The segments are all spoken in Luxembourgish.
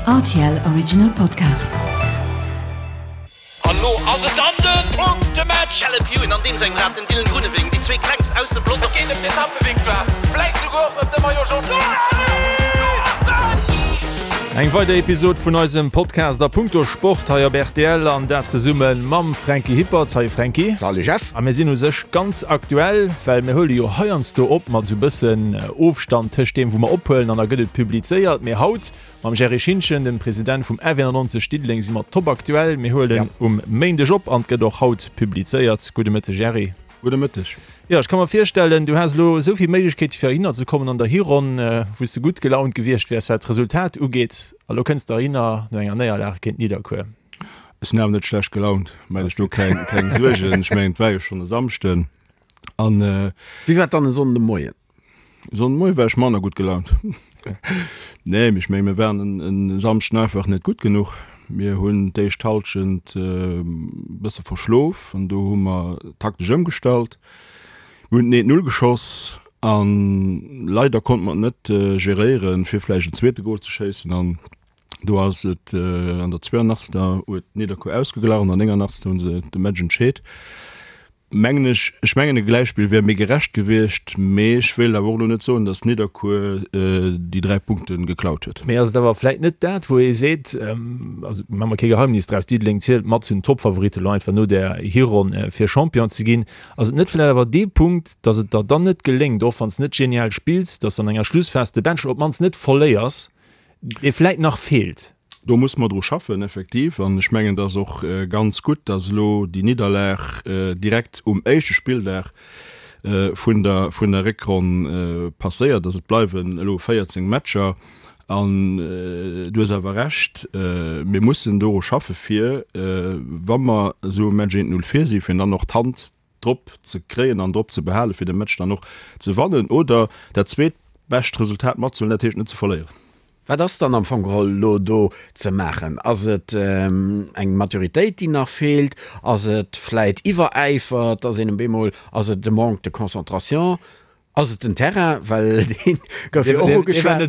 Rtl Original Podcast. An lo ass et dann den Punktematch! Caleb Ewan an deem sengem Rad, den Dylan Groenewegen, déi zwee klengst aus dem Pelotong. Et geet ëm d'Etappevictoire, vläit souguer och ëm de Maillot Jaune. Eng weider Episod vun eisem Podcast a punkto Sport hei op rtl an dat zesumme mam Franky Hippert. Salut Franky. Salut Jeff. A mir sinn u sech ganz aktuell, well mir huele jo heiansdo op mat esou bëssen Ofstand tëscht deem wou mer ophuelen an da gëtt et publizéiert. Mee haut mam Gerry Schintgen, dem President vum F91 Diddeleng, si mer top aktuell. Mir huelen um Méindeg op an et gëtt och haut publizéiert. Gudde Mëtteg Gerry. Gudde Mëtteg. Jo, ech ka mer virstellen, du has elo esou vill Méiglechkeete fir heihinner ze kommen an der Hironn, wou s de gutt gelaunt gewiescht wäers, wat d'Resultat ugeet. A lo kënns de heihinner no enger Néierlag géint Nidderkuer. Ech sinn awer net schlecht gelaunt, maach dech do keng, keng Suergen. Ech mengen, et war jo schonn e Samschden an. Wéi war et dann e Sonnden de Moien? Sonndmoie war ech manner gutt gelaunt. Nee, mee ech menge mir waren en Samschden einfach net gutt genuch. Mir hunn d'éischt Hallschent e bësse verschlof an do hu mer taktesch ëmgestallt. Mir hunn den eent Null geschoss a leider konnte mer et net geréieren, fir vläicht en zweete Gol ze schéissen. An do ass et an der 82. huet Nidderkuer ausgeglach an der 89. hu se de Match entscheet. Mengen ech, ech mengen e Gläichspill wär méi gerecht gewiescht, mee ech wéilt awer och elo net soen, datt Nidderkuer déi 3 Punkte geklaut huet. Mee ass et awer vläit net dat, wou ee seet, also maache mer kee Geheimnis draus, Diddeleng zielt mat zu den Topfavoritten elo einfach no där Hironn fir Champion ze ginn, ass et net vläit awer dee Punkt, datt et der dann net geléngt, och wann s net genial spills, datt s an enger Schlussphas de Bench op d'mannst net verléiers, dee vläit nach feelt? Do musse mer dru schaffen, effektiv. An ech mengen, et ass och ganz gutt, dass elo déi Nidderlag direkt um éischte Spilldag vun der, vun der Réckronn passéiert ass. Et bleiwen elo 14 Matcher. An du hues awer Recht, mir mussen doru schaffe fir, wa mer esou e Match 1, 0 vir sinn, fir dann och d'Hand drop ze kréien an drop ze behalen, fir de Match dann och ze wannen oder dat zweetbescht Resultat matzehuelen, dat heescht net ze verléieren. Wat ass dann am Fong geholl elo do ze maachen? Ass et eng Maturitéit, déi nach feelt? Ass et vläit Iwweräifer, dass een op eemol, ass et de Manque de concentration? Ass et den Terrain, well deen gouf jo och ugeschwat,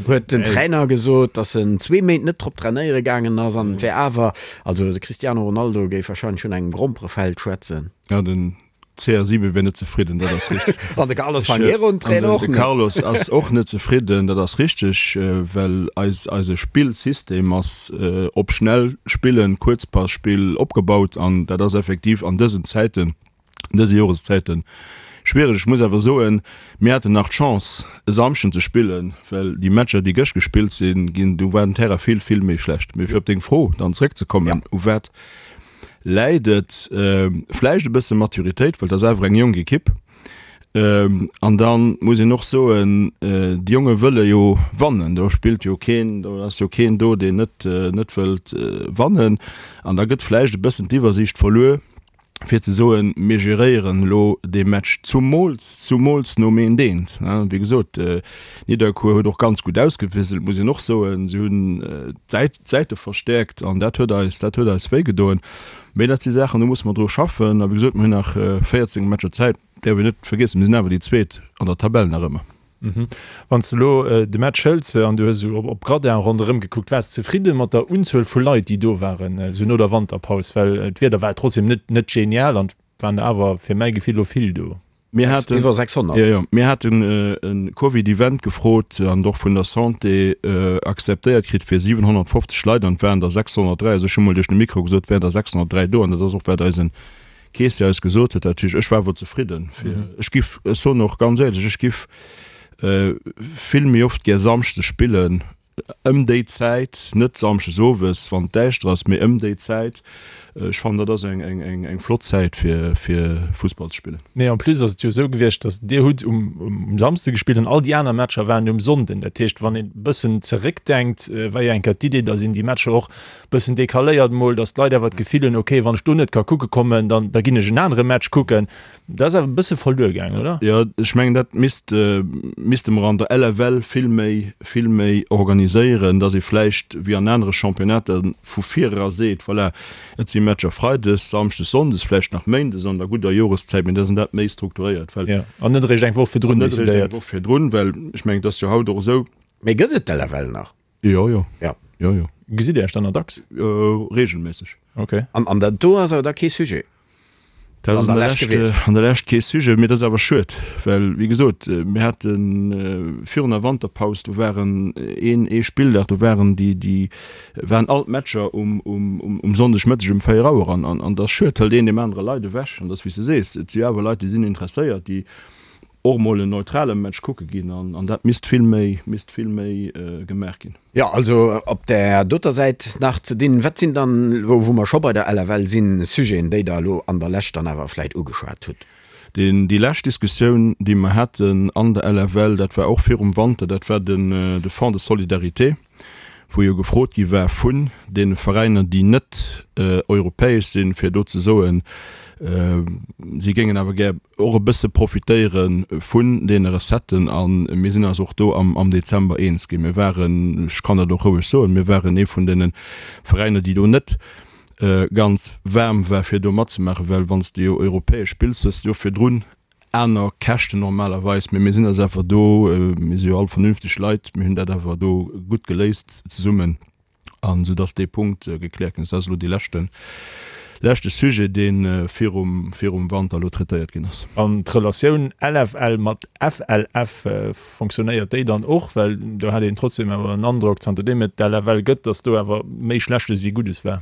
huet den Trainer gesot, datt en zwee Méint net drop trainéiere gaangen ass an et wär awer, also de Cristiano Ronaldo géif wahrscheinlech vun engem Gromperefeld schwätzen. Ja, den CR7 wär net zefridden, dat ass richteg. An de Carlos Fangueiro, den Trainer, och net. De Carlos ass och net zefridden, dat ass richteg, well eis, eise Spillsystem ass op schnell spillen, Kuerzpasspill opgebaut an dat ass effektiv an dësen Zäiten, an dëse Joreszäiten schwiereg. Ech muss awer soen, mir haten nach d'Chance e Samschden ze spillen, well déi Matcher déi gëscht gespillt sinn ginn, do war den Terrain vill, vill méi schlecht. Mee fir op deng Fro dann zréckzekommen, u wat läit et? Vläicht e bësse Maturitéit, well et ass awer eng jonk Ekipp. An da muss een och soen, déi Jonge wëlle jo wannen, do spillt jo keen, do ass jo keen do, deen net, net wëllt wannen. An da gëtt vläicht e bëssen d'Iwwersiicht verluer, fir ze soen, mir geréieren elo dee Match, zumools, zumools nom eent eent. Wéi gesot, Nidderkuer huet och ganz gutt ausgewiesselt, muss een och soen. Si hunn d'Säit, d'Säite verstäerkt an dat huet eis, dat huet eis wéigedoen. Mee dat si Saachen, do musse mer dru schaffen. A wéi gesot, mir hunn nach 14 Matcher Zäit. Däerf een net vergiessen, mir sinn awer déi Zweet an der Tabell nach ëmmer. Wann s de elo de Match hëls an du hues esou op Gradin ronderëm gekuckt, waars de zefridde mat der Unzuel vu Leit, déi do waren, esou no der Wanterpaus? Well d'Wieder war trotzdem net net genial an et waren der awer fir mäi Gefill elo vill do. Mir haten, Iwwer 600. Jo, jo, mir haten e Covid-Event gefrot an och vun der Santé akzeptéiert kritt fir 750 Leit an et waren der 603. Also ech hu mol duerch de Mikro gesot, et wären der 603 do an dat ass och wat eisen Kees eis gesot huet, dat heescht, ech war awer zefridden. Fir, ech giff, ech soen och ganz éierlech, ech giff vill méi oft gär Samschdes spillen, ëm déi Zäit, net Samschdes owes, wann et däischter ass, mee ëm déi Zäit. Ech fannen, dat ass eng, eng, eng, eng flott Zäit fir, fir Fussball ze spillen. Mee en plus ass et jo esou gewiescht, datt Dir hutt um, um Samsde gespillt an all déi aner Matcher waren um Sonnden. Dat heescht, wann een e bëssen zeréckdenkt, war jo eng Kéier d'Idee, datt een déi Matcher och Bëssen decaléiert mol, dass d'Leit awer d'Gefill hunn, ok, wann ech do net ka kucke kommen, dann da ginn ech en anere Match kucken. Dat ass awer e bësse verluer gaangen, oder? Jo, ech mengen, dat misst, misste mer an der LFL vill méi, vill méi organiséieren, dass ee vläicht wéi an anere Championnater vu vir era seet, voilà, et si Matcher freides, samschdes, sonndes, vläicht nach méindes an der gudder Joreszäit, mee dass een dat méi strukturéiert, well. Jo, an net eréischt eng Woch virdrun decidéiert. An net eréischt eng Woch virdrun, well ech mengen, et ass jo haut och esou. Mee gëtt et d'LFL nach? Jo, jo. Ja. Jo, jo. Gesitt Dir Iech dann nach dacks? Reegelméisseg. Ok. An dat do ass awer da kee Sujet? Dat ass an der Lescht, an der Lescht kee Sujet, mee dat ass awer schued, well wéi gesot, mir hate virun der Wanterpaus, do waren een, ee Spilldag, do waren déi, déi waren all d'Matcher um, um, um Sonndegmëtteg um 4 Auer an, an, an dat ass schued, hëlt een deem anere Leit ewech an dat ass wéi s de sees, et si jo awer Leit, déi sinn interesséiert, déi och mol en neutrale Match kucke ginn an, an dat misst vill méi, misst vill méi gemaach ginn. Jo, also op där doter Säit nach ze dinn. Wat sinn dann elo, wou mer scho bei der LFL sinn, Sujeten, déi Der elo an der Lescht dann awer vläit ugeschwat hutt? Deen, déi lescht Diskussioun, déi mer haten an der LFL, dat war och virum Wanter, dat war den, de Fonds de solidarité, wou jo gefrot gi war vun deene Veräiner, déi net europäesch sinn, fir do ze soen, si géingen awer gär och e bësse profitéiere vun deene Recetten. A mir sinn eis och do am Dezember eens ginn. Mir waren, ech kann dat och roueg soen, mir waren ee vun deene Veräiner, déi do net ganz waarm war, fir do matzemaachen, well wann s de jo europäesch spills, hues de jo virdrun aner Käschten normalerweis, mee mir sinn eis awer do, mir si jo all vernünfteg Leit, mir hunn dat awer do gutt geléist zesummen an esou dass dee Punkt gekläert ginn ass. Dat ass elo dee leschten, leschte Sujet, dee virum, virum Wanter elo traitéiert ginn ass. An d'Relatioun LFL mat FLF, fonctionnéiert déi dann och? Well do hat een trotzdem awer en Androck, zanterdeem et d'LFL gëtt, dass do awer méi Schlechtes wéi Guddes war.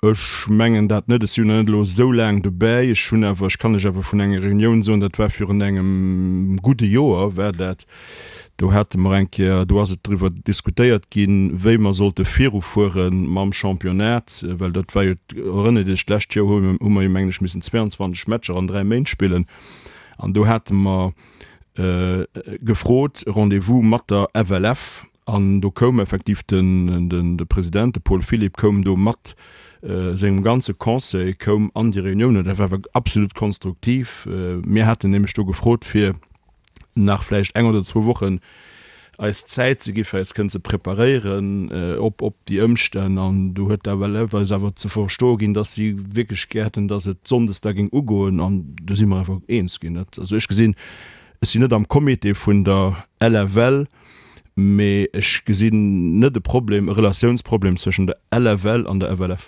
Ech mengen dat net. Ech sinn jo nach net elo esou laang dobäi. Ech hunn awer, ech kann lech awer vun enger Reunioun soen, dat war virun engem gudde Joer war dat, do hate mer eng Kéier, do ass et driwwer diskutéiert ginn, wéi mer sollte virufuere mam Championnat, well dat war jo, erënnert Iech, d'lescht Joer hu hu mer jo mengen ech missen 22 Matcher an 3 Méint spillen an do hate mer gefrot e Rendez-vous mat der FLF An do koum effektiv den de President, de Paul Philipp, koum do mat sengem ganze Conseil koum an déi Reunioun. An dat war awer absolut konstruktiv. Mir haten nämlech do gefrot, fir nach vläicht eng oder zwou Wochen eis Zäit ze gi fir eis kënnen ze preparéieren op op déi Ëmstänn. An do huet d'FLF eis awer ze verstoe ginn, datt si wierklech gär hätten, datt et sonndes da géing ugoen. An do si mer awer eens ginn. Dat, also ech gesinn, ech sinn net am Comité vun der LFL, Mee ech gesinn net e Problem, e Relatiounsproblem zwëschen der LFL an der FLF.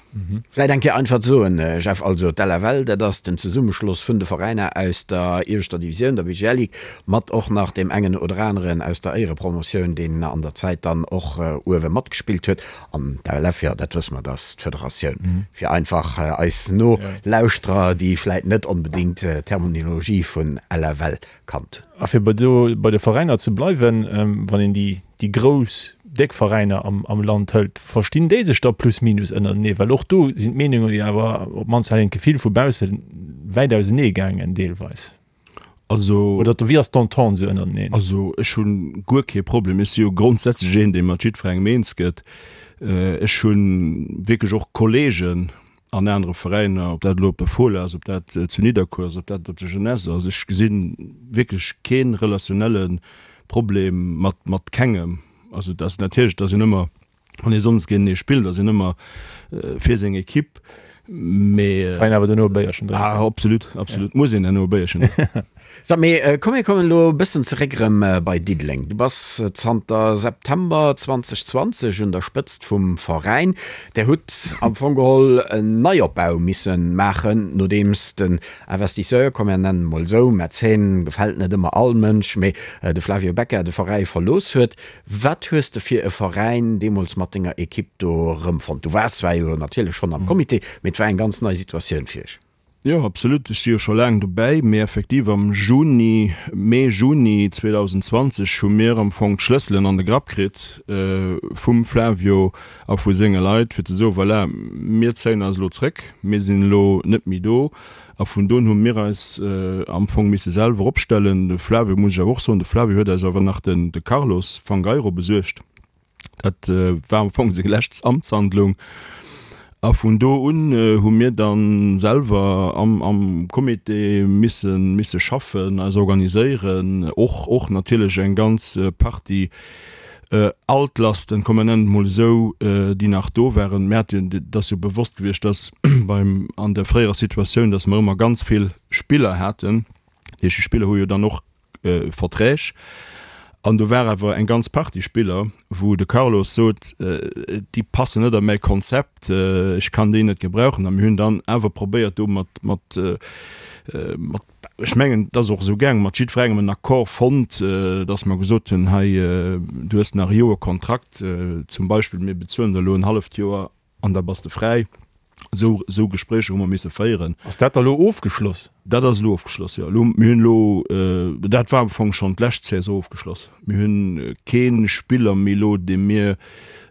Vläit eng Kéier einfach ze soen, Jeff, also d'LFL, dat ass den Zesummeschloss vun de Veräiner aus der ieweschter Divisioun, der BGL Ligue, mat och nach deem engen oder aneren aus der Éierepromotioun, deen an der Zäit dann och uewe matgespillt huet. An d'LF, jo, dat wësse mer, dat ass d'Federatioun. Fir einfach eis Nolauschterer, déi vläit net onbedéngt d'Terminologie vun LFL kannt. A fir bei do bei de Veräiner ze bleiwen, wann een déi déi grouss, déck Veräiner am am Land hëlt, verstinn déi sech da plus minus ënnertenee? Well och do sinn d'Meenunge jo awer, op d'mannst hat een d'Gefill vu bausse, wäit ausenee gaangen deelweis. Also. Oder wéi ass d'Entente esou ënnerteneen? Also ech hu guer kee Problem. Ech si jo grondsätzlech een, dee mat jiddwerengem eens gëtt. Ech hu wierklech och Kollegen, an anere Veräiner, ob dat elo op der Fola ass, ob dat zu Nidderkuer ass, ob dat op der Jeunesse ass, ech gesi wierklech kee relationelle Problem mat, mat kengem. Also et ass natierlech, et ass een ëmmer, wann ee sonndes géintenee spillt, ass een ëmmer fir seng Equipe, mee. Kann een awer duerno e Béierchen drénken. Ah, absolut, absolut, muss een duerno e Béierchen drénken. Sag, mee komm mir kommen elo e bëssen zeréck erëm bei Diddeleng. Du bass zanter September 2020 un der Spëtzt vum Veräin. Där hutt am Fong geholl en Neiopbau misse maachen, nodeems den Investisseur, komm mir nennen e mol esou, Mäzen gefält net ëmmer all Mënsch, mee de Flavio Becca de Veräi verlooss huet. Wat hues de fir e Veräin deemools mat denger Ekipp do erëmfonnt? Du waars zwar jo natierlech schonn am Comité, mee et war eng ganz nei Situatioun fir iech. Jo, absolut. Ech si jo scho laang dobäi, mee effektiv am Juni, Mee, Juni 2020 hu mir am Fong d'Schlësselen an de Grapp kritt vum Flavio a vu senge Leit, fir ze soen, voilà, mir zéien eis elo zréck, mir sinn elo net méi do. A vun do un hu mir eis am Fong misse selwer opstellen. De Flavio, muss ech awer och soen, de Flavio huet eis awer nach den de Carlos Fangueiro besuergt. Dat war am Fong seng lescht Amtshandlung. A vun do un hu mir da selwer am am Comité misse misse schaffen, eis organiséieren, och och natierlech eng ganz Partie Altlasten, komm mer nennen et mol esou, déi nach do waren. Mir hate jo, et ass jo bewosst gewiescht, dass beim an der fréierer Situatioun, dass mer ëmmer ganz vill Spiller haten. Déi Spiller hu jo dann och Verträg. An do war awer eng ganz Partie Spiller, wou de Carlos sot, déi passen net a mäi Konzept, ech kann déi net gebrauchen. A mir hunn dann awer probéiert do mat, mat, mat, ech mengen, et ass och esou gaangen, mat jiddwerengem en Accord fonnt, datt mer gesot hunn, hei, du hues nach e Joer Kontrakt zum Beispill, mir bezuelen der elo en halleft Joer An da bass de fräi. Esou, esou Gespréicher hu mer misse féieren. Ass dat da lo ofgeschloss? Dat ass elo ofgeschloss, jo. Elo, mir hunn elo, dat war am Fong schonn d'lescht Saison ofgeschloss. Mir hunn kee Spiller méi elo, dee mir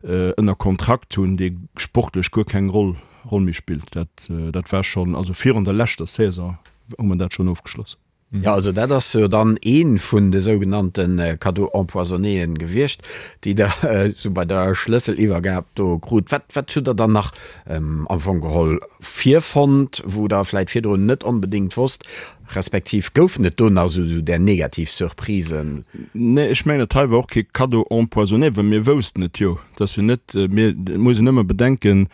ënner Kontrakt hunn, dee sportlech guer keng Roll, Roll méi spillt. Dat, dat war schonn, also virun der leschter Saison hu mer dat schonn ofgeschloss. Jo, also dat ass jo dann ee vun de sougenannte Cadeaux empoisonnéen gewiescht, déi Der esou bei der Schlësseliwwergab do krut. Wat, wat hutt Der dann nach am Fong geholl virfonnt, wou Der vläicht virdrun net onbedéngt wosst, respektiv goufen et do nach esou där negativ Surprisen? Nee, ech mengen, dat hei war och kee Cadeau empoisonné, well mir woussten et jo. Et ass jo net, mir, et muss een ëmmer bedenken,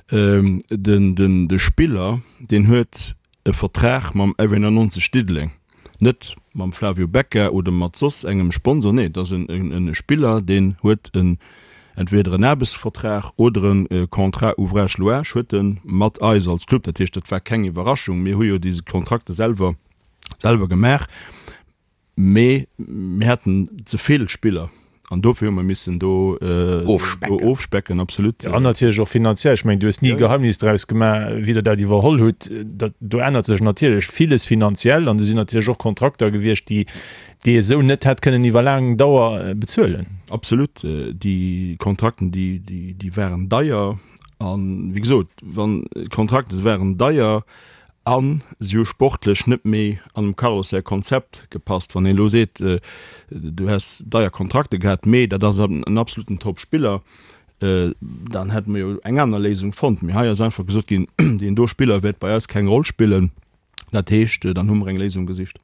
den, den, de Spiller, deen huet e Vertrag mam F91 Diddeleng, net mam Flavio Becca oder mat soss engem Sponsor, nee, et ass e Spiller, deen huet en entweder en Aarbechtsvertrag oder e Contrat ouvrage louage huet e mat eis als Club. Dat heescht, dat war keng Iwwerraschung, mir hu jo déi Kontrakte selwer selwer gemaach. Mee mir haten ze vill Spiller an dofir hu mer missen do ofspecken. Absolut. An natierlech och finanziell. Ech mengen, du hues ni e Geheimnis draus gemaach, wéi Der dat iwwerholl hutt. Dat, do ännert sech natierlech villes finanziell an do sinn natierlech och Kontrakter gewiescht, déi, déi ee sou net hätt kënnen iwwer laang Dauer bezuelen. Absolut. Déi Kontrakten, déi, déi, déi waren deier. A wéi gesot, wann d'Kontrakte waren deier, A si hu sportlech net méi an dem Carlos säi Konzept gepasst. Wann een elo seet, du häss deier Kontrakte gehat, mee dat ass en absoluten Top-Spiller, dann hätte mer jo eng aner Léisung fonnt. Mee hei ass einfach gesot ginn, deen do Spiller wäert bei eis keng Roll spillen. Dat heescht, dann hu mer eng Léisung gesicht.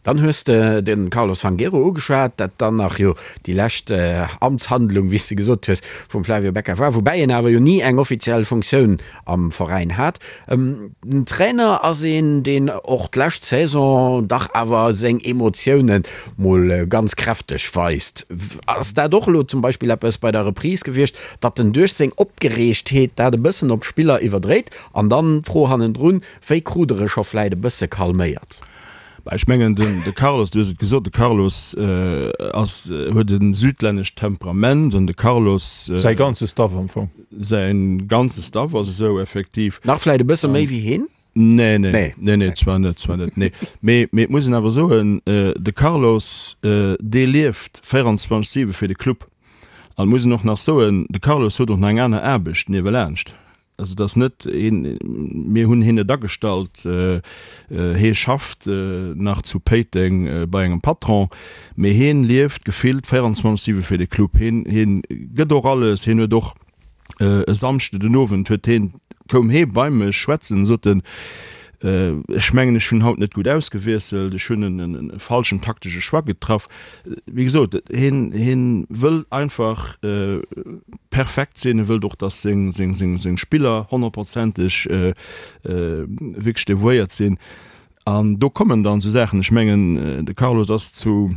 Dann hues de de Carlos Fangueiro ugeschwat, dat dann nach jo déi lescht Amtshandlung, wéi s de gesot hues, vum Flavio Becca war, woubäi en awer jo ni eng offiziell Funktioun am Veräin hat. Den Trainer ass een, deen och d'lescht Saison dach awer seng Emotioune mol ganz kräfteg weist. Ass dat och elo zum Beispill eppes bei der Reprise gewiescht, datt en duerch seng Opgereegtheet dat e bëssen op d'Spiller iwwerdréit? An dann d'Fro hannendrun, Wéi krut der e scho vläit e bësse calméiert? Bah, ech mengen, den, de Carlos, du hues et gesot, de Carlos ass, huet e südlännescht Temperament an de Carlos. Säi ganze Staff am Fong. Säi ganze Staff ass esou, effektiv. Nach vläit e bësse méi wéi hien? Nee, nee, nee, nee, zwar net, zwar net, nee. Mee, mee et muss een awer soen, de Carlos, dee lieft 24, 7 fir de Club. An et muss een och nach soen, de Carlos huet och nach eng aner Aarbecht niewelaanscht. Also et ass net een, mir hunn hien net agestallt, hie schafft nach zu Péiteng bei engem Patron, mee hien lieft gefillt 24, 7 fir de Club. Hien, hien gëtt och alles. Hien huet och e Samschde den Owend huet hien, koum hie bei mech schwätzen, sot en, Ech mengen, ech hunn haut net gutt ausgewiesselt, ech hunn e falschen taktesche Choix getraff. Wéi gesot, hien, hien wëll einfach perfekt sinn, e wëllt och, datt seng, seng, seng, seng Spiller honnertprozenteg wierklech devouéiert sinn. An do kommen dann esou Saachen, ech mengen, de Carlos ass zu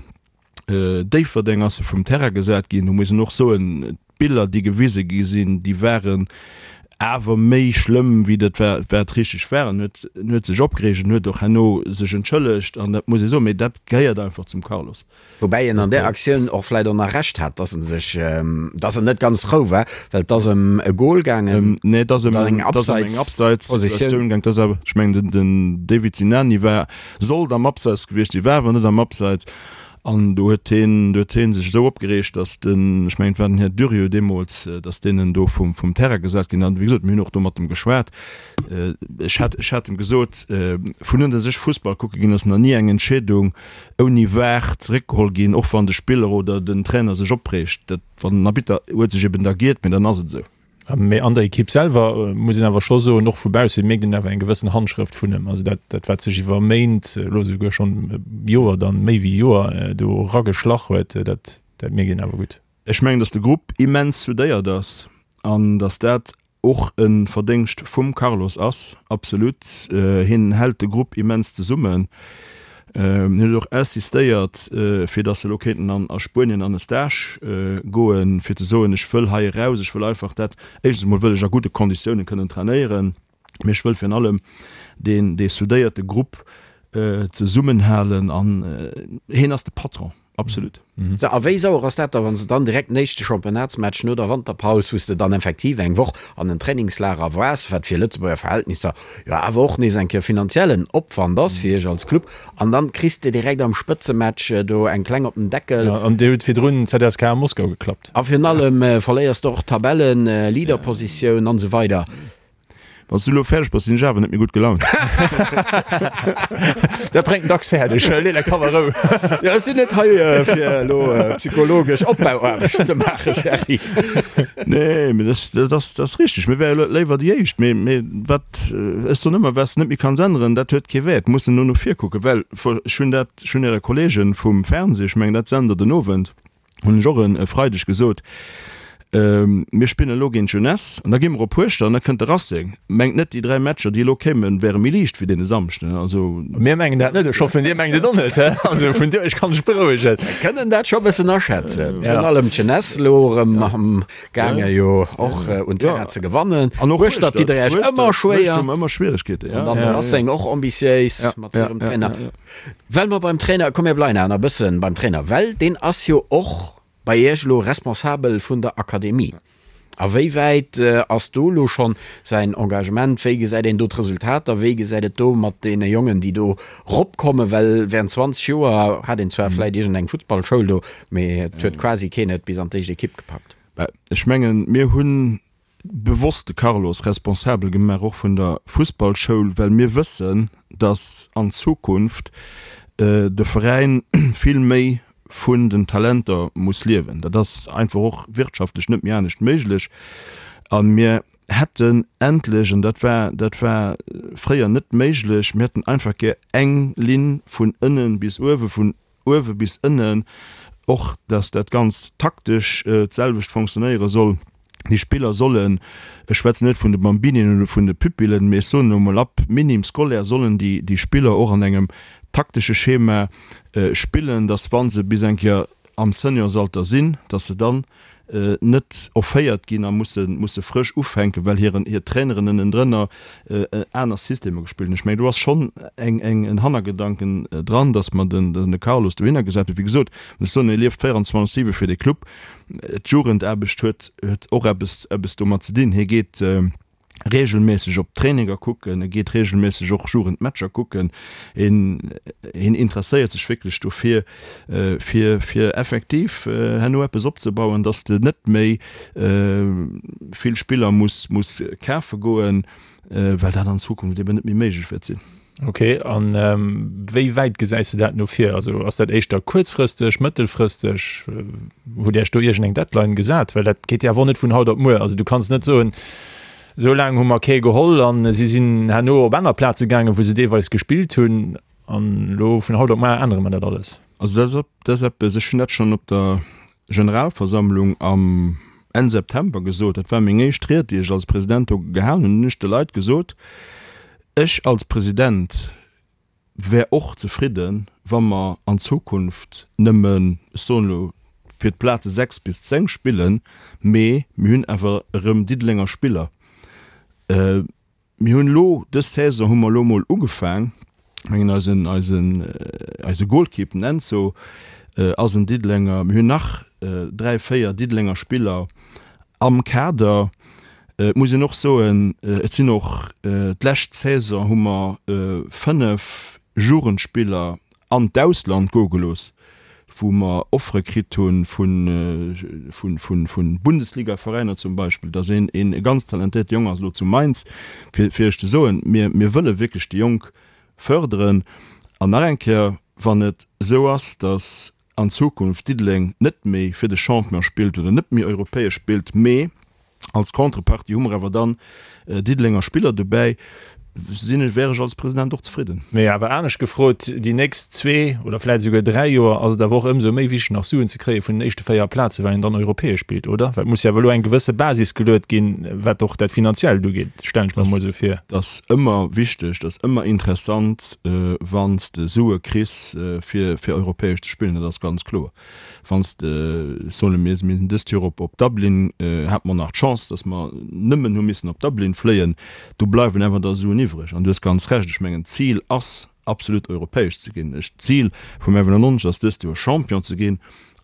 Déifferdeng ass e vum Terrain gesat ginn. Do muss een och soen, d'Biller, déi gewise gi sinn, déi waren awer méi schlëmm, wéi dat wat richteg war. En huet, en huet sech opgereegt, en huet och herno sech entschëllegt an dat muss ee soen, mee dat gehéiert einfach zum Carlos. Woubäi en an där Aktioun och vläicht och nach Recht hat, dass en sech, dass en net ganz rou war, well et ass ëm e Gol gaangen. Nee, et ass ëm eng Abseitssituatioun gaangen. Et ass awer, ech mengen, den David Sinani war, sollt am Abseits gewiescht sinn, war awer net am Abseits. An do huet hien, do huet hie sech esou opgereegt, datt den, ech mengen et war den Här Durieux deemools, datt deen en do vum, vum Terrain gesat ginn. An wéi gesot, mir hunn och do mat em geschwat. Ech hat, ech hat em gesot, vun un datt ech Fussball kucke ginn, ass nach ni eng Entscheedung ouni var zeréckgeholl ginn, och wann de Spiller oder den Trainer sech opreegt. Dat, wann den Arbitter huet sech eben da giert, mee dann ass et esou. Mee an der Ekipp selwer muss een awer scho soen, och vu bausse mierkt een awer eng gewëssen Handschrëft vun em. Also dat, dat wat sech iwwer Méint, elo esouguer schonn Joer dann, méi wéi Joer do erageschlach huet, dat, dat mierkt een awer gutt. Ech mengen, datt de Grupp immens soudéiert ass an datt dat och e Verdéngscht vum Carlos ass, absolut. Hien hält de Grupp immens zesummen. Hien huet och insistéiert, fir datt se elo kéinten an a Spuenien an e Stage goen, fir ze soen, ech wëll hei eraus, ech wëll einfach dat, éischtens emol wëll ech a gudde Konditiounen kënnen trainéieren, mee ech wëll virun allem deen, dee soudéierte Grupp zesummenhalen an hien ass de Patron. Absolut. Sou, a wéi sauer ass dat da, wann s de dann direkt den éischte Championnatsmatch no der Wanterpaus, wou s de dann effektiv eng Woch an en Trainingslager waars, wat fir Lëtzebuerger Verhältnisser jo awer och nees eng Kéier finanziellen Opwand ass fir iech als Club, an dann kriss de direkt am Spëtzematch do eng kleng op den Deckel. Jo, an dir hutt virdrun ZSKA Moskau geklappt. A virun allem verléiers de och d'Tabellen-Leaderpositioun an esou weider. Wann s du elo fäerdeg bass, sinn ech awer net méi gutt gelaunt. Dat bréngt en dacks fäerdeg. Lee däi Kapp a Rou. Jo, ech sinn net hei, fir elo psychologesch Opbauaarbecht ze maachen, Gerry. Nee, mee dat, dat ass, dat ass richteg. Mir wäre léiwer déi Éischt. Mee, mee wat, ech soen ëmmer, wat s de net méi kanns änneren, dat huet kee Wäert. Mussen no no vir kucken. Well ech hunn dat, ech hunn Äre Kollege vum Fernseh, ech mengen, dat sent Der den Owend, hunn ech och e Freideg gesot, mir spillen elo géint d'Jeunesse an da gi mer op Hueschtert an da kënnt de Racing. Mengt net, déi 3 Matcher, déi elo kéimen, wäre méi liicht wéi dee Samschden. Also. Mir mengen dat net, ech hoffen, Dir mengt et och net. Also vun dir, ech kann dech berouegen. Mir kënnen dat scho e bëssen aschätzen. Virun allem d'Jeunesse elo erëm am gaange jo och un Terrain ze gewannen. An och Hueschtert ditt Der Iech ëmmer schwéier. Hueschtert hu mer ëmmer Schwieregkeeten, jo. An dann de Racing och ambitiéis mat hirem Trainer. Well mer beim Trainer, komm mir bleiwen awer nach e bëssen beim Trainer, well deen ass jo och bei Iech elo responsabel vun der Akademie. A wéi wäit ass do elo schonn säin Engagement, wéi gesäit een do d'Resultater, wéi gesäit et do mat deene Jongen, déi do ropkommen, well während 20 Joer hat een zwar vläit iergendeng Futtballschoul do, mee et huet quasi keen et bis an d'éischt Ekipp gepackt. Ech mengen, mir hunn bewosst de Carlos responsabel gemaach och vun der Fussballschoul, well mir wëssen, dass an Zukunft de Veräin vill méi vun den Talenter muss liewen. Dat ass einfach och wirtschaftlech net méi anescht méiglech. A mir hätten endlech, an dat war, dat war fréier net méiglech, mir hätten einfach gär eng Linn vun ënnen bis uewe, vun uewe bis ënnen, och dass dat Ganzt taktesch d'selwecht fonctionnéiere soll. Déi Spiller sollen, ech schwätzen net vun de Bambinien oder vun de Pupillen, mee ech soen elo emol, ab Minime scolaire sollen déi, déi Spiller och an engem taktesche Schema spillen, dass wa se bis eng Kéier am Seniorsalter sinn, dass se dann net offéiert ginn a musse musse frësch ufänken, well hiren hir Traineren ënnendrënner aner Systemer gespillt hunn. Ech mengen, do ass schonn eng eng en Hannergedanken dran, datt mer den de Carlos dohinner gesat hunn. Wéi gesot, ech soen, e lieft 24, 7 fir de Club. D'Jugendaarbecht huet huet och eppes eppes domat ze dinn. Hie geet regelméisseg op d'Traininger kucken, e geet regelméisseg och Jugendmatcher kucken, hien hien interesséiert sech wierklech dofir, fir fir effektiv herno eppes opzebauen, dass de net méi vill Spiller muss muss kafe goen, well dat an Zukunft eben net méi méiglech wäert sinn. Ok, an wéi wäit gesäis de dat no vir? Also ass dat éischter kuerzfristeg, mëttelfristeg? Hutt Dir Iech do iergendeng Deadline gesat? Well dat geet jo awer och net vun haut op muer. Also du kanns net soen, esou laang hu mer kee geholl an si sinn herno op aner Plaze gaangen, wou se deelweis gespillt hunn, an elo vun haut op muer ännere mer dat alles. Also dat ass eppes, ech hunn dat schonn op der Generalversammlung am Enn September gesot, dat war meng éischt Ried, déi ech als President do gehalen hunn, hunn ech de Leit gesot, Ech als President wär och zefridden, wa mer an Zukunft nëmmen, ech soen elo, fir d'Plaze 6 bis 10 spillen, mee mir hunn awer erëm Diddelenger Spiller. Mir hunn elo, dës Saison hu mer elo emol ugefaang, ech mengen eisen, eisen, eise Goalkeep, den Enzo, ass en Diddelenger. Mir hunn nach 3, 4 Diddelenger Spiller am Kader. Et muss een och soen, et sinn och, d'lescht Saison hu mer 5 Jugendspiller an d'Ausland goe gelooss, wou mer Offere kritt hu vu Bundesligaveräiner zum Beispill. Dass een e ganz talentéierte Jong ass elo zu Mainz, fir Iech ze soen, mir wëlle wierklech déi Jonk fërderen. An nach eng Kéier, wann et esou ass, dass an Zukunft Diddeleng net méi fir de Champion spillt oder net méi europäesch spillt, mee als Contrepartie hu mer awer dann Diddelenger Spiller dobäi. Sinn ech, wär ech als President och zefridden. Mee awer anescht gefrot, déi nächst zwee oder vläit esouguer 3 Joer ass et awer och ëmsou méi wichteg nach Suen ze kréie vun den éischte 4 Plazen, well een dann europäesch spillt, oder? Well et muss jo awer elo eng gewësse Basis geluet ginn, wat och dat Finanziellt ugeet, stellen ech mer emol esou vir. Et ass ëmmer wichteg, et ass ëmmer interessant, wann s de Sue kriss fir fir europäesch ze spillen, dat ass ganz kloer. Wann s de, solle mir, mir sinn dëst Joer op op Dublin, hate mer nach d'Chance, datt mer nëmmen hu missen op Dublin fléien, do bleiwen awer da Suen iwwreg. An du hues ganz Recht, ech mengen d'Zil ass absolut europäesch ze ginn. Ech, d'Zil vum 91 ass dëst Joer Champion ze ginn.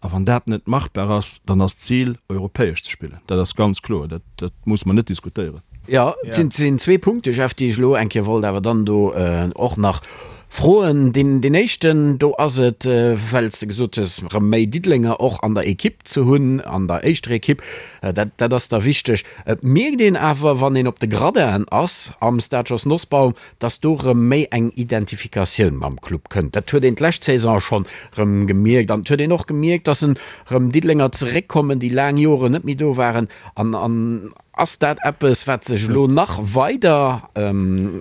A wann dat net machbar ass, dann ass d'Zil europäesch ze spillen. Dat ass ganz kloer, dat dat musse mer net diskutéieren. Jo, et sinn zwee Punkte, Jeff, déi ech elo eng Kéier wollt awer dann do och nach Froen. Deen éischten, do ass et, well s de gesot hues, erëm méi Diddelenger och an der Ekipp ze hunn, an der éischter Ekipp, dat, dat ass da wichteg. Et mierkt een awer, wann een op de Gradinen ass am Stade Jos Nosbaum, dass do erëm méi eng Identifikatioun mam Club kënnt. Dat huet een d'lescht Saison schonn erëm gemierkt an et huet een och gemierkt, dass en erëm Diddelenger zeréckkommen, déi laang Joren net méi do waren an, an Ass dat eppes, wat sech elo nach weider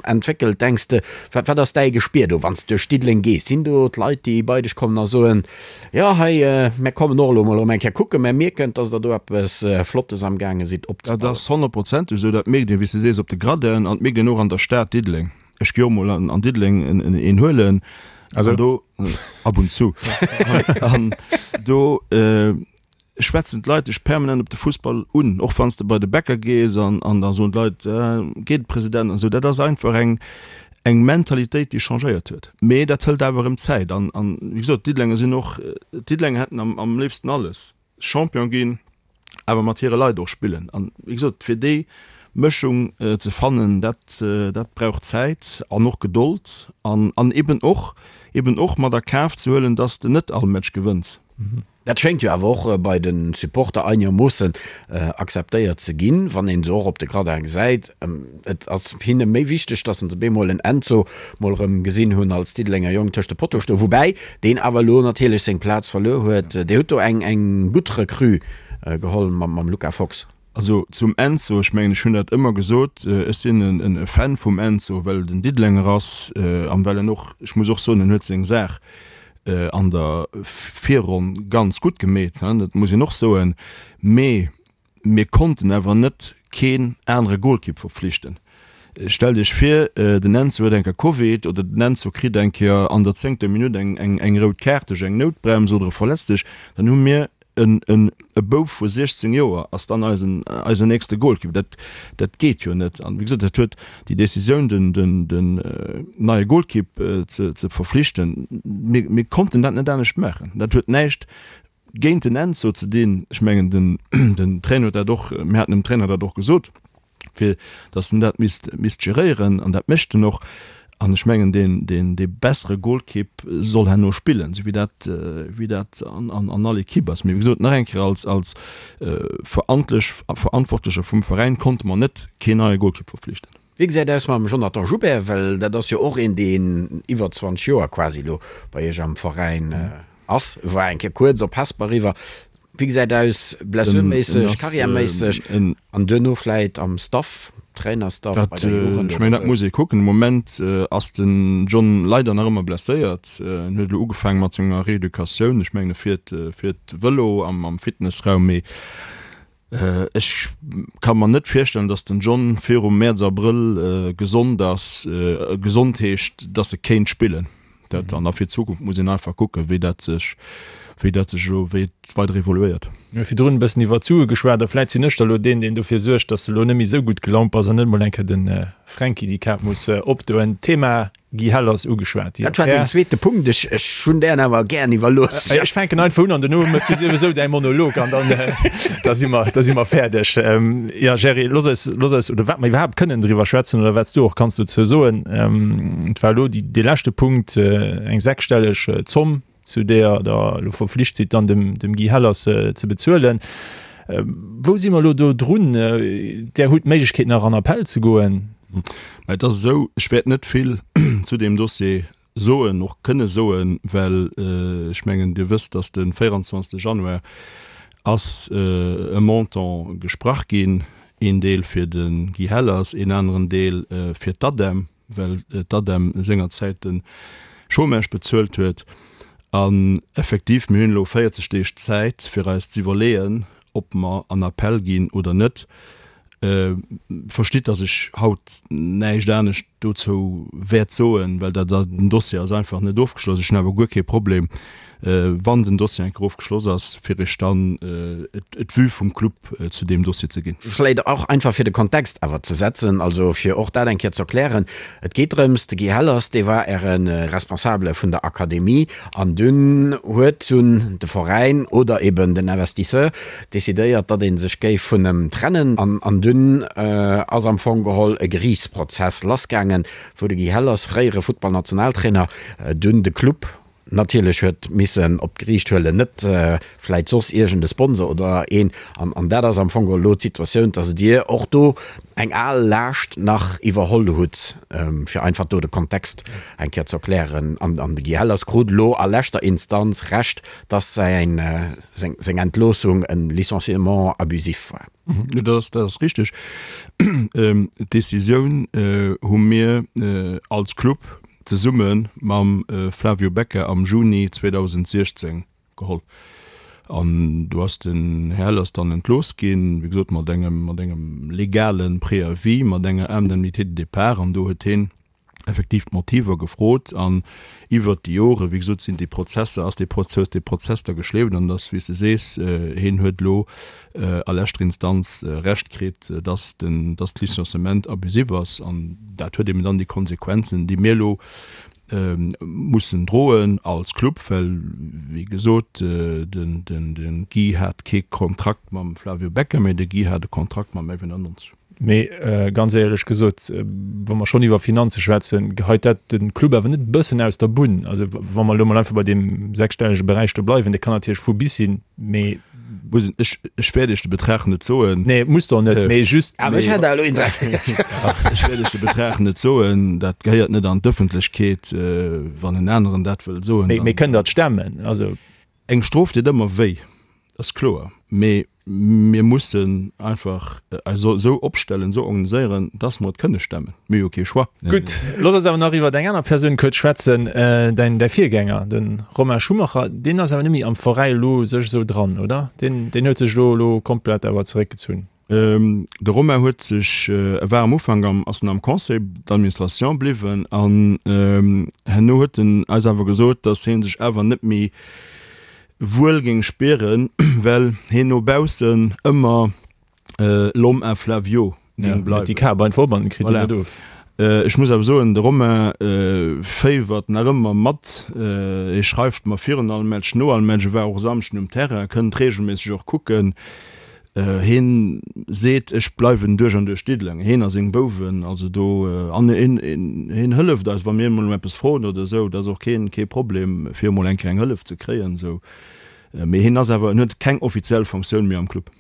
entwéckelt, denks de? Wat wat ass däi Gespier do, wann s de duerch Diddeleng gees? Sinn do d'Leit, déi bei dech kommen a soen, Jo, hei, mär kommen och elo mol erëm eng Kéier kucken, mär mierken, dass der do eppes Flottes amgaange sidd opzebauen? Dat ass honnertprozenteg esou. Dat mierkt een, wéi s de sees, op de Gradinen an et mierkt een och an der Stad Diddeleng. Ech gi och mol an Diddeleng een huelen. Also do ab und zu. An do schwätzen d'Leit dech permanent op de Fussball un, och wann s de bei de Bäcker gees an an da soen d'Leit, geet President an esou. Dat ass einfach eng eng Mentalitéit, déi changéiert huet. Mee dat hëlt awer erëm Zäit an an wéi gesot, d'Diddelenger sinn och, d'Diddelenger hätten am am léifsten alles, Champion ginn, awer mat hire Leit och spillen. An wéi gesot, fir déi Mëschung ze fannen, dat dat brauch Zäit an och Gedold an an eben och eben och mat a Kaf ze huelen, dass de net all Match gewënns. Dat schéngt jo awer och bei de Supporter einegermoossen akzeptéiert ze ginn, wann een se och op de Gradin gesäit. Et ass hinne méi wichteg, datt se bemol en Enzo mol erëm gesinn hunn als Diddelenger Jong tëscht de Pottoe stoen, woubäi deen awer elo natierlech seng Plaz verluer huet. Dir hutt do eng gutt Recrue geholl mam Luca Fox. Also zum Enzo, ech mengen ech hunn dat ëmmer gesot, ech sinn e Fan vum Enzo, well et en Diddelenger ass an well en och, ech muss och soen, en huet seng Saach an der Virronn ganz gutt gemeet, dat muss een och soen. Mee mir konnten awer net keen anere Golkipp verpflichten. Stellt Iech vir, den Enzo huet eng Kéier Covid oder den Enzo kritt eng Kéier an der zéngter Minutt eng rout Kaart duerch eng Noutbrems oder e verletzt sech, dann hu mir En e Bouf vu 16 Joer ass dann eisen eisen nächste Golkipp. Dat dat geet jo net. An wéi gesot, dat huet déi Decisioun, den den den neie Golkipp ze ze verflichten, mir mir konnten dat net anescht maachen. Dat huet näischt géint den Enzo ze dinn. Ech mengen den den Trainer huet dat och, mir haten dem Trainer dat och gesot. fir datt en dat misst, misst geréieren, an dat mécht en och. An ech mengen, deen, deen, dee bessere Golkipp soll herno spillen, esou wéi dat, wéi dat an, an, an all Ekipp ass. Mee wéi gesot, nach eng Kéier, als, als Verantlech, Verantwortlecher vum Veräin konnte mer net keen neie Golkipp verflichten. Wéi gesäit aus mam Jonathan Joubert? Well dat ass jo och een, deen iwwer 20 Joer quasi elo bei Iech am Veräin ass, war eng Kéier kuerz op Hesper eriwwer. Wéi gesäit aus blessurméisseg, carrièreméisseg an duerno vläit am Staff, Trainerstaff bei der Jugend? Ech mengen, dat muss ee kucken. De Moment ass den John leider nach ëmmer blesséiert. En huet elo ugefaange mat senger Reeducatioun. Ech mengen, e fiert, fiert Vëlo am, am Fitnessraum. Mee ech ka mer net virstellen, datt den John virum Mäerz, Abrëll gesond ass. Gesond heescht, datt e kéint spillen. Dat, an da fir d'Zukunft muss een einfach kucken, wéi dat sech, wéi dat sech elo, wéi et weider evoluéiert. Mir hu virdrun e bëssen iwwer d'Sue geschwat a vläit sinn ech da elo deen, deen dofir suergt, dass de elo net méi esou gutt gelaunt bass an net emol eng Kéier de Fränki déi Kap muss opdoen. D'Thema Guy Hell ass ugeschwat. Dat war deen zweete Punkt. Ech, ech hunn dären awer gären iwwerlooss. Ech fänken einfach un an duerno méchs du souwisou däi Monolog an dann, da si mer, da si mer fäerdeg. Jo, Jerry, looss eis, looss eis, oder wat mer iwwerhaapt kënnen driwwer schwätzen oder wat s du och kanns dozou soen, et war elo déi, dee leschte Punkt, eng sechsstelleg Zomm, zu deeër Der elo verpflicht sidd, dann dem, dem Guy Hellers ze bezuelen. Wou si mer elo do drun? Der hutt d'Méiglechkeet nach an Appell ze goen. Mä et ass esou, ech wäert net vill zu deem Dossier soen, och kënne soen, well ech mengen, Dir wësst, dass de 24. Januar ass e Montant gesprach ginn, een Deel fir de Guy Hellers, een aneren Deel fir d'ADEM. well d'ADEM sengerzäit de Chômage bezuelt huet. An effektiv, mir hunn elo 40 Deeg Zäit, fir eis z'iwwerleeën, ob mer an Appell ginn oder net. Verstitt, dass ech haut näischt anescht dozou wäert soen, well dat, den Dossier ass einfach net ofgeschloss. Ech hunn awer guer kee Problem, wann den Dossier eng Kéier ofgeschloss ass, fir Iech dann d'Vue vum Club zu deem Dossier ze ginn. Vläicht och einfach fir de Kontext awer ze setzen, also fir och dat eng Kéier ze erklären, Et geet drëms, de Guy Hellers, dee war Äre Responsabele vun der Akademie an dunn huet dunn de Veräin oder eben den Investisseur decidéiert, datt ee sech géif vun em trennen an dunn ass am Fong geholl e Geriichtsprozess lassgaangen, wou de Guy Hellers, fréiere Futtballnationaltrainer, dunn de Club natierlech huet missen op d'Geriicht huelen, net vläit soss iergend e Sponsor oder een. An dat ass am Fong geholl elo d'Situatioun, datt Dir och do eng al Laascht nach iwwerholl hutt, fir einfach do de Kontext eng Kéier ze erklären. An de Guy Hellers krut elo a leschter Instanz Recht, datt säin, seng Entloossung e Licenciement abusif war. Jo, dat ass richteg. D'Decisioun hu mir als Club zesumme mam Flavio Becca am Juni 2016 geholl. An do ass den Här Hellers dann entlooss ginn, wéi gesot mat engem, mat engem legale Préavis, mat enger Indemnité de départ. An do huet hien effektiv d'Motiver gefrot. An iwwert déi Jore, wéi gesot, sinn déi Prozesser, ass dee Prozess, dee Prozess da geschleeft. An dass, wéi s de sees, hien huet elo a leschter Instanz Recht kritt, dass den, dass d'Licenciement abusif ass. An dat huet eben dann déi Konsequenzen, déi mir elo mussen droen als Club, well, wéi gesot, den, den, de Guy hat kee Kontrakt mam Flavio Becca, mä de Guy hat e Kontrakt mam F91. Mee ganz éierlech gesot, wa mer schonn iwwer Finanze schwätzen, geheit dat de Club awer net e bëssen aus der Bunn? Also wa mer elo mol einfach bei deem sechsstellege Beräich do bleiwen, dee kann natierlech vu bis sinn, mee. Muss een, ech, ech wäert Iech de Betrag net soen. Nee, musst Der och net, mee just. Awer ech hätt elo Interessi. Ech wäert Iech de Betrag net soen, dat gehéiert net an d'Ëffentlechkeet. Wann en aneren dat wëll soen, dann. Mee kënnt Der et stemmen? Also. Eng Strof deet ëmmer wéi, dat ass kloer, mee mir mussen einfach eis esou opstellen, esou organiséieren, dass mer et kënne stemmen. Mir hu jo kee Choix. Gutt, looss eis awer nach iwwer eng aner Persoun kuerz schwätzen, däin däi Virgänger, de Romain Schumacher. Deen ass awer net méi am Veräi elo sech esou dran, oder? Deen deen huet sech elo elo komplett awer zeréckgezunn. De Romain huet sech, e war am Ufank am, ass en am Conseil d'administration bliwwen an herno huet en eis awer gesot, datt hie sech awer net méi wuel géing spieren, well hien no baussen ëmmer l'homme à Flavio géing bleiwen. Déi Kap einfach op an en kritt en net of. Ech muss awer soen, de Romain féiwert nach ëmmer mat, hie schreift mer virun all Match, no all Match, e war och e Samschden um Terrain, kënnt reegelméisseg och kucken. Hien seet, Ech bleiwen duerch an duerch Diddeleng. Hien a seng Bouwen, also do, an hien, hien hëlleft eis, wa mir emol ëm eppes froen oder esou, dat ass och keen, kee Problem, fir emol eng kleng Hëllef ze kréien esou. Mee hien ass awer, en huet keng offiziell Fonctioun méi am Club.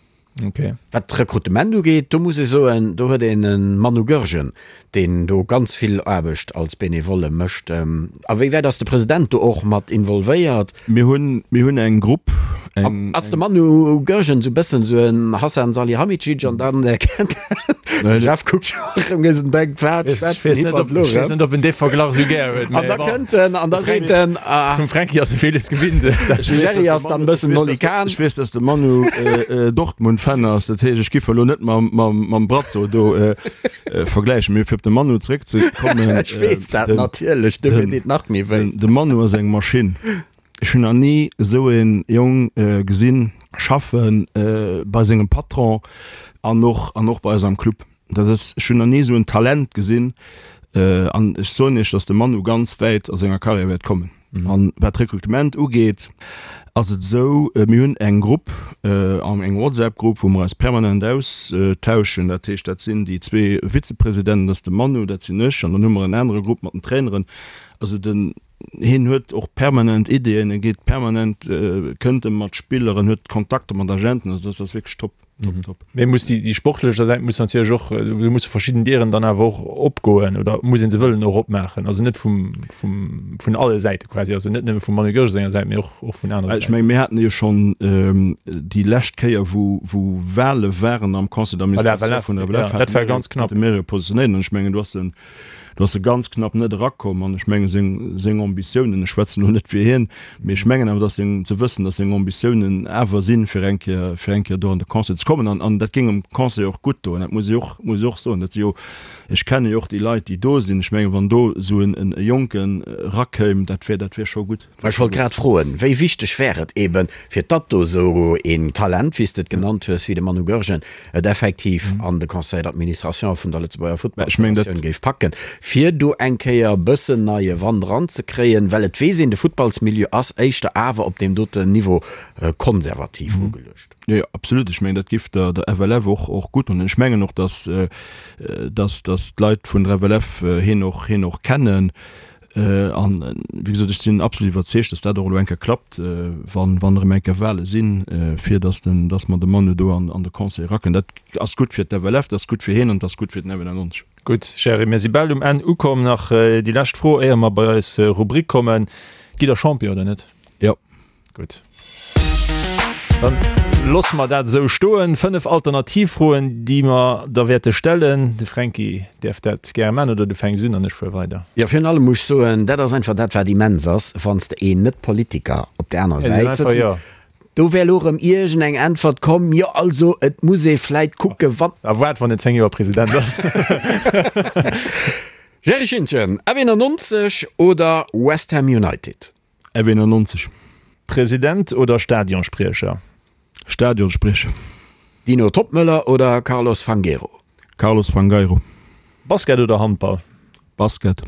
Okay. Wat d'Rekrutement ugeet, do muss ee soen, do huet een e Manu Goergen, deen do ganz vill Aarbecht als Benevole mécht. A wéi wäit ass de President do och mat involvéiert? Mir hunn, mir hunn eng Grupp, eng. Ass de Manu Goergen esou e bëssen esou en Hasan Salihamidzic an dann kennt de Jeff kuckt scho erëm nees an denkt, wat schwätzt den Hippert elo erëm? Ech weess net, ob en dee Verglach esou gär huet. An da kënnt en an da seet en, ah. Vum Franky ass e villes gewinnt. De Jerry ass dann e bëssen Oli Kahn. Ech weess, dass de Manu Dortmund-Fan ass, dat heescht, ech giff elo net mam Brazzo do. Vergläichen. Mee fir op de Manu zeréckzekommen. Ech weess dat natierlech, dofir deet nach méi wéi. De Manu ass eng Maschinn. Ech hunn nach ni esou ee Jong gesinn schaffen, bei sengem Patron an och an och bei eis am Club. Dat ass, ech hunn nach ni esou en Talent gesinn. An ech soen Iech, datt de Manu ganz wäit a senger Karriär wäert kommen. An wat d'Rekrutement ugeet, ass et esou, mir hunn eng Grupp, eng WhatsApp-Grupp, wou mer eis permanent austauschen. Dat heescht, dat sinn déi zwee Vizepresidenten, dat ass de Manu, dat sinn ech, an dann hu mer en anere Grupp mat den Traineren. Also den, hien huet och permanent Ideeën, e geet permanent, kënnt e mat Spiller, en huet Kontakter mat Agenten, also dat ass wierklech top. Top, top. Mee muss déi, déi sportlech Säit muss natierlech och, do musse verschidden Dieren dann awer och opgoen oder muss een se wëllen och opmaachen. Also net vum, vum, vun alle Säite quasi, also net nëmme vum Manu Goergen senger Säit, mee och, och vun anere Säiten. Ech menge mir haten jo schonn déi lescht Kéier, wou, wou Wahle waren am Conseil d'administration vun der FLF, dat war ganz knapp. Hate mir jo positionéiert an ech mengen do ass en. Do ass e ganz knapp net erakomm an ech menge seng, seng Ambitiounen, ech schwätzen elo net fir hien, mee ech mengen awer, dass seng, ze wëssen, dass seng Ambitiounen awer sinn, fir eng Kéier, fir eng Kéier do an de Conseil ze kommen. An, an dat géing dem Conseil och gutt doen, dat muss ee och, muss ee och soen. Dat si jo, ech kenne jo och déi Leit, déi do sinn. Ech menge wann do esou en, en Jonken erakéim, dat wär, dat wär scho gutt. Ech wollt grad froen, wéi wichteg wär et eben, fir datt do esou een Talent, wéi s de et genannt hues, wéi de Manu Goergen, et effektiv an de Conseil d'administration vun der Lëtzebuerger Futtballfederatioun géif packen, fir do eng Kéier e bëssen neie Wand eranzekréien, well et weess een, de Futtballsmilieu ass éischter awer op deem doten Niveau konservativ ugeluecht. Jo, absolut. Ech mengen, dat géif der FLF och gutt doen. Ech mengen och, datt d'Leit vun der FLF hien och kennen. An wéi gesot, ech sinn absolut iwwerzeegt, dass dat och elo eng Kéier klappt, wann, wann erëm eng Kéier Wahle sinn, fir dass den, dass mer de Manu do an, an de Conseil eraken. Dat ass gutt fir d'FLF, dat ass gutt fir hien an dat ass gutt fir den F91. Gutt, Jerry, mir si bal um Enn ukomm. Nach déi lescht Fro, éier mer bei eis Rubrik kommen. Gitt Der Champion oder net? Jo. Gutt. Dann loosse mer dat esou stoen. 5 Alternativfroen, déi mer der wäerte stellen. De Fränki däerf dat gäre maachen oder du fänks un an ech fuere weider. Jo, virun allem muss ech soen, dat ass einfach dat, wat immens ass, wann s de een Net-Politiker op där anerer Säit sëtzen, do wär elo erëm iergend eng Äntwert komm, jo also et muss ee vläit kucke wann. A waart, wann en 10 Joer President ass. Gerry Schintgen, F91 oder West Ham United? F91. President oder Stadionspriecher? Stadionspriecher. Dino Toppmöller oder Carlos Fangueiro? Carlos Fangueiro. Basket oder Handball? Basket.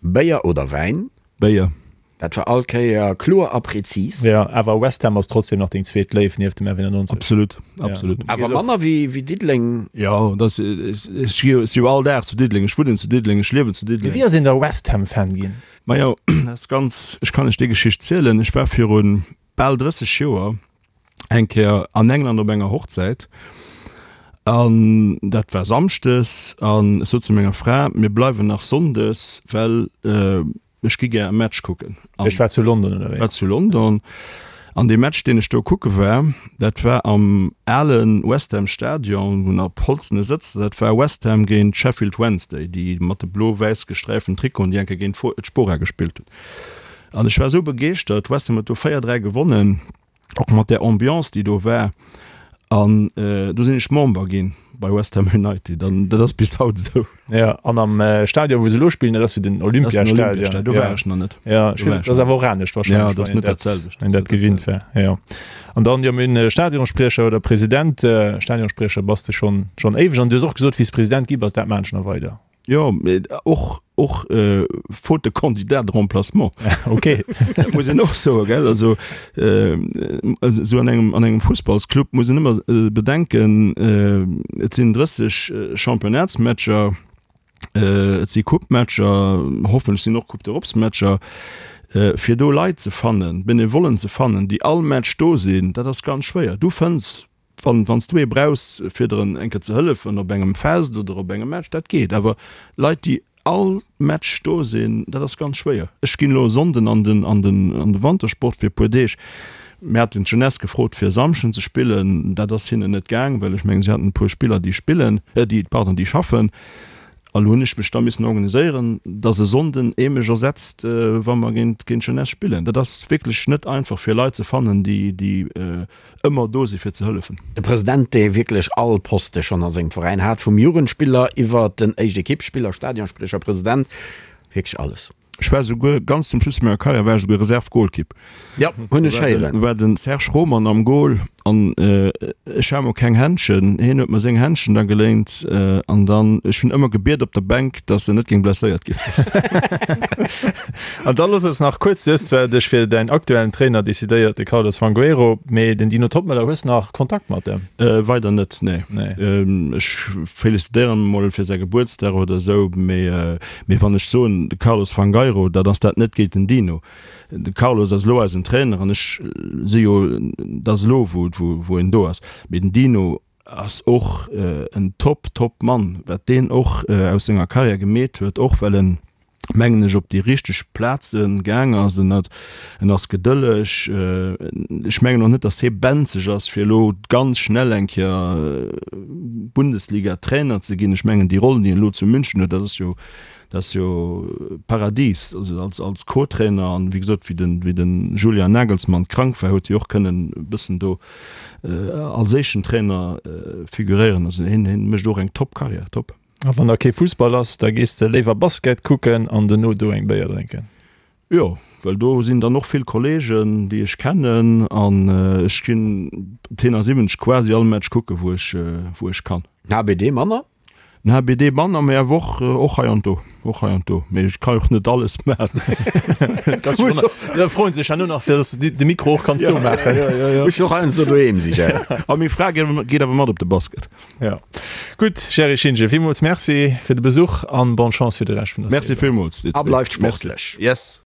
Béier oder Wäin? Béier. Dat war all Kéier kloer a präzis. Jo, awer West Ham ass trotzdem nach deng zweet Léif nieft dem F91. Absolut, absolut. Awer manner wéi Diddeleng. Jo, dat ass, ech si jo all Dag zu Diddeleng, ech wunnen zu Diddeleng, ech liewen zu Diddeleng. Mee wéi ass een da West Ham Fan ginn? Majo, dat ass ganz, ech kann lech déi Geschicht zielen. Ech war viru bal 30 Joer eng Kéier an England op enger Hochzäit an dat war samschdes an ech sot zu menger Fra, mir bleiwen nach sonndes, well ech gi gär e Match kucken. Ech war zu London ënnerwee. War zu London an dee Match, deen ech do kucke war, dat war am ale West Ham Stadion, wou nach holzene Sëtzer, dat war West Ham géint Sheffield Wednesday, déi mat de blo-wäiss gesträiften Trikoten, déi eng Kéier géint d'Spora gespillt hunn. An ech war esou begeeschtert, West Ham huet do 4, 3 gewonnen, och mat där Ambiance, déi do war. An do sinn ech Member ginn bei West Ham United an dat ass bis haut esou. Jo, an am Stadion, wou se elo spillen, dat ass jo den Olympiastadion. Do war ech nach net. Jo, ech weess, dat ass awer och anescht warscheinlech. Jo, dat ass net dat selwecht. Wann een dat gewinnt war, jo. An dann, jo, mir hunn Stadionspriecher oder President. Stadionspriecher bass de schonn, schonn éiweg. An du hues och gesot, wéi s President gi bass, dat maachen ech nach weider. Jo, mee och, och faute de candidat de remplacement. Ok. Dat muss een och soen, gell. Also, esou an engem, an engem Fussballsclub muss een ëmmer bedenken, et sinn 30 Championnatsmatcher, et si Coupematcher, hoffentlech sinn och Coupe d'Europesmatcher, fir do Leit ze fannen, Benevollen ze fannen, déi all Match do sinn, dat ass ganz schwéier. Du fënns Wann wann s du ee brauchs fir der eng Kéier ze hëllefen op engem Fest oder op engem Match, dat geet. Awer Leit déi all Match do sinn, dat ass ganz schwéier. Ech ginn elo e Sonnden an den an den an de Wantersport fir e puer Deeg. Mir haten d'Jeunesse gefrot fir e Samschden ze spillen, dat ass hinnen net gaang, well ech mengen si haten e puer Spiller déi spillen, déi pardon déi schaffen. A lo hunn ech mech da missen organiséieren, dass e Sonnden ee mech ersetzt, wa mer géint géint d'Jeunesse spillen. Dat ass wierklech net einfach fir Leit ze fannen déi déi ëmmer do si fir ze hëllefen. De President, dee wierklech all Poste schonn a sengem Veräin hat, vum Jugendspiller iwwer den Éischt-Ekipp-Spiller, Stadionspriecher, President, wierklech alles. Ech war souguer, ganz zum Schluss vu menger Karriär, war ech souguer Reserve-Golkipp. Jo, hunn ech héieren. War den Serge Roman am Gol an ech hat mol keng Händschen. Hien huet mer seng Händschen da geléint an dann, ech hunn ëmmer gebiet op der Bänk, dass en net géing blesséiert ginn. An da looss eis nach kuerz, du hues zwar dech fir däin aktuellen Trainer decidéiert, de Carlos Fangueiro, mee den Dino Toppmöller, hues nach Kontakt mat em? Weider net, nee. Ech felicitéieren em mol fir säi Gebuertsdag oder esou, mee mee wann ech soen de Carlos Fangueiro, dat ass dat net géint den Dino. De Carlos ass elo eisen Trainer an ech si jo, dat ass elo wou wou en do ass, mee den Dino ass och en top top Mann, wat deen och aus senger Karriär gemeet huet, och well en. Mengen ech, op déi richteg Plaze gaang ass. En hat, en ass gedëlleg. Ech mengen och net, datt hie benzeg ass, fir elo ganz schnell eng Kéier Bundesliga-Trainer ze ginn. Ech mengen, déi Roll, déi en elo zu München huet, dat ass jo, dat ass jo Paradies. Also als, als Co-Trainer an, wéi gesot, wéi den, wéi den Julian Nagelsmann krank war, huet hie och kënnen e bëssen do als éischten Trainer figuréieren. Also hien, hien mécht och eng Top-Karriär, top. A wann da kee Fussball ass, da gees de léiwer Basket kucken an dono do eng Béier drénken? Jo, well do sinn dann och vill Kollegen, déi ech kennen an ech ginn d'T79 quasi all Match kucken, wou ech, wou ech kann. Den HBD manner? Den HBD manner, mee awer och, och hei an do, och hei an do. Mee ech ka jo och net alles maachen. Da froen se sech herno nach, fir dass du de Mikro och kanns do maachen. Muss jo och heiansdo doheem si, gell? A meng Fra geet awer mat op de Basket. Ja. Gutt, Gerry Schintgen, villmools Merci fir de Besuch an bonne Chance fir de Rescht vun der Merci Saison. villmools, dir A zwee. bleift Merci. sportlech. Yes.